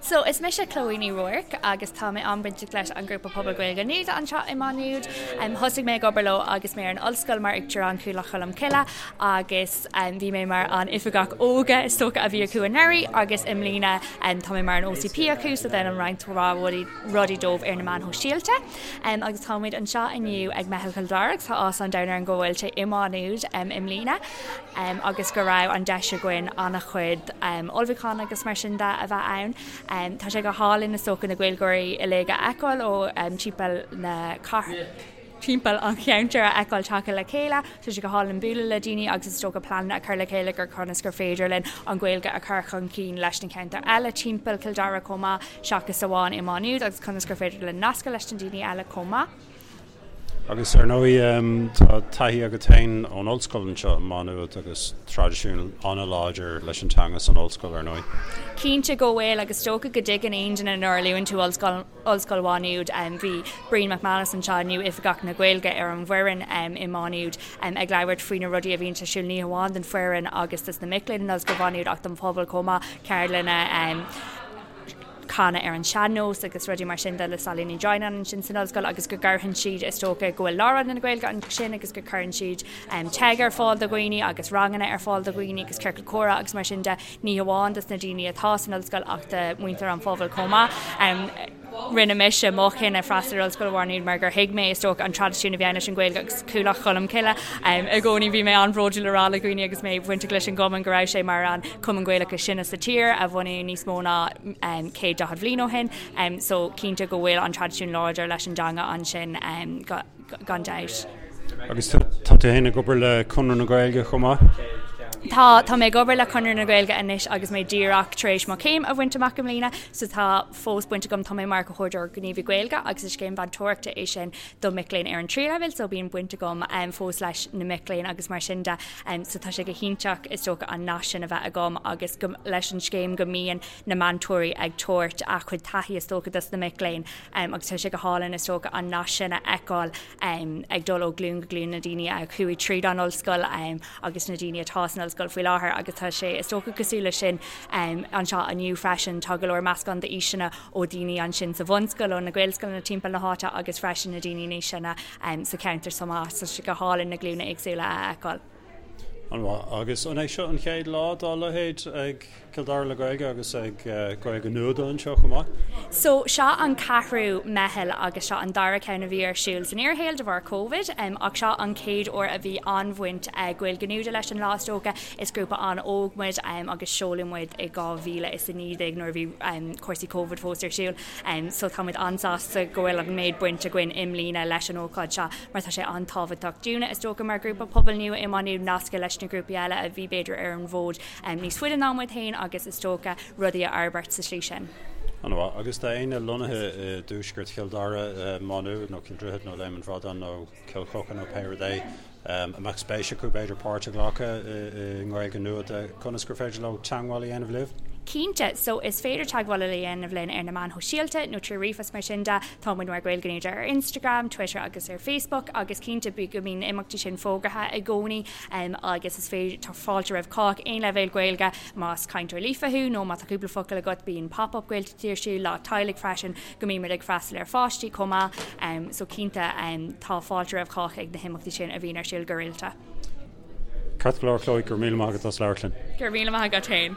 So, is mise Chloe Ní Ruairc agus tá mé an-bhainteach leis an ghrúpa Pobal Gaeilge Nuada anseo i Má Nuad. Thosaigh mé ag obair leo agus mé ar an ollscoil mar Uachtarán Chuallacht Cholm Cille agus bhí mé mar an oifigeach óige is dócha a bhí acu anuraidh agus i mbliana tá mé mar an OCP acu so déanaim roinnt mhaith rudaí dóibh ar na meáin shóisialta. Agus táimid anseo inniu ag Meitheal Chill Dara agus tá áthas an domhain orainn go bhfuil sé i Má Nuad i mbliana agus go raibh an deis againn an-chuid ullmhúchán agus mar sin de a bheith ann. Tá sé go hálainn is dócha na Gaeilgeoirí uilig a fheiceáil ó timpeall na timpeall an cheantair a fheiceáil tagtha le chéile. Tá sé go hálainn bualadh le daoine agus is dócha pleananna a chur le chéile gur conas gur féidir linn an Ghaeilge a chur chun cinn leis na ceantair eile timpeall Chill Dara chomh maith seachas amháin i Má Nuad agus conas gur féidir linn nascadh leis na daoine eile chomh maith. Agus ar ndóigh tá taithí agat féin ón ollscoil anseo i Má Nuad agus traidisiún an-láidir leis an teanga san ollscoil ar ndóigh. Cinnte go bhfuil agus is dócha go dtuigeann aon duine nuair a luann tú ollscoil Ollscoil Mhá Nuad. Bhí Brian McManus anseo inniu, Oifigeach na Gaeilge ar an bhfoireann i Má Nuad, ag labhairt faoi na rudaí a bhíonn ar siúl ní hamháin don foireann agus dos na mic léinn in Ollscoil Mhá Nuad ach don phobal chomh maith, ceardlanna, canadh ar an sean-nós agus rudaí mar sin de le Sailí Ní Dhroighneáin ansin san ollscoil agus go gcuireann siad, is dócha, go bhfuil Lárionad na Gaeilge ansin agus go gcuireann siad TEG ar fáil do dhaoine agus ranganna ar fáil do dhaoine agus ciorcal comhrá agus mar sin de. ní hamháin dos na daoine atá san ollscoil ach do mhuintir an phobail chomh maith. Rinne mise mo chinneadh freastal ar Ollscoil Mhá Nuad mar gur thuig mé, is dócha, an traidisiún a bhí ann leis an Ghaeilge agus Cuallacht Cholm Cille. I gcónaí bhí mé an-bhródúil a rá le dhaoine agus mé bainteach leis an gcumann go raibh sé mar an cumann Gaelach is sine sa tír a bunaíodh níos mó ná 140 bhliain ó shin. So cinnte go bhfuil an traidisiún láidir leis an dteanga ansin. gan dabht. Agus tá tú féin ag obair le Conradh na Gaeilge chomh maith? Tá, tá mé ag obair le Conradh na Gaeilge anois agus mé díreach tar éis mo chéim a bhaint amach i mbliana, so tá fós baint agam, tá mé mar Chomhordaitheoir Gníomhaí Gaeilge agus is scéim mheantóireachta é sin do mic léinn ar an tríú leibhéal, so bíonn baint agam fós leis na mic léinn agus mar sin de, so tá sé go hiontach is dócha an nasc sin a bheith agam agus go, leis an scéim go mbíonn na meantóirí ag tabhairt a chuid taithí is dócha dos na mic léinn. Agus tá sé go hálainn is dócha an nasc sin a fheiceáil ag dul ó ghlúin go glúin, na daoine a chuaigh tríd an ollscoil agus na daoine atá san ollscoil faoi láthair agus tá sé is dócha cosúil leis sin anseo inniu freisin. Tá go leor meascán d'aoiseanna ó daoine ansin sa bhunscoil, ó na Gaelscoileanna timpeall na háite agus freisin na daoine níos sine sa cheantar chomh maith. Tá sé go hálainn na glúine éagsúla a fheiceáil. An-mhaith. Agus an é seo an chéad lá dá leithéid ag Cill Dara le Gaeilge agus ag Gaeilge Nuada anseo chomh maith? So, seo an ceathrú meitheal agus seo an dara ceann a bhí ar siúl san fhíorshaol de bharr Covid ach seo an chéad uair a bhí an-bhaint ag Gaeilge Nuada leis an lá is dócha. Is grúpa an-óg muid agus seoladh muid i 2019 nuair a bhí cúrsaí Covid fós ar siúl. So tá muid an-sásta go bhfuil an méid baint againn i mbliana leis an ócáid seo mar tá sé an-tábhachtach dúinne is dócha mar ghrúpa pobail nua i Maigh Nuad nascadh leis na grúpaí eile a bhí b'fhéidir ar an bhfód níos faide ná muid féin agus is dócha rudaí a fhorbairt sa slí sin. An-mhaith. Agus tá éinne lonnaithe i dtuaisceart Chill Dara, Maigh Nuad nó Cill Droichid nó Léim an Bhradáin nó Cill Choca nó pé rud é, a mbeadh spéis acu b'fhéidir páirt a ghlacadh i nGaeilge Nuada, conas gur féidir leo teagmháil a dhéanamh libh? Cinnte, so is féidir teagmháil a dhéanamh linn ar na meáin shóisialta nó trí ríomhphost mar sin de. Tá muid mar Gaeilge Nuada ar Instagram, Twitter agus ar Facebook agus cinnte bí go mbíonn na imeachtaí sin fógartha i gcónaí agus is féidir, tá fáilte roimh chách, aon leibhéal Gaeilge, más cainteoir líofa thú nó má tá cúpla focal agat bíonn pop-up Gaeltachtaí ar siúl, lá teaghlaigh freisin. go mbímid ag freastal ar pháistí chomh maith so cinnte tá fáilte roimh chách ag na himeachtaí sin a bhíonn ar siúl go rialta. Ceart go leor Chloe, go raibh míle maith agat as labhairt linn. Go raibh míle maith agat féin.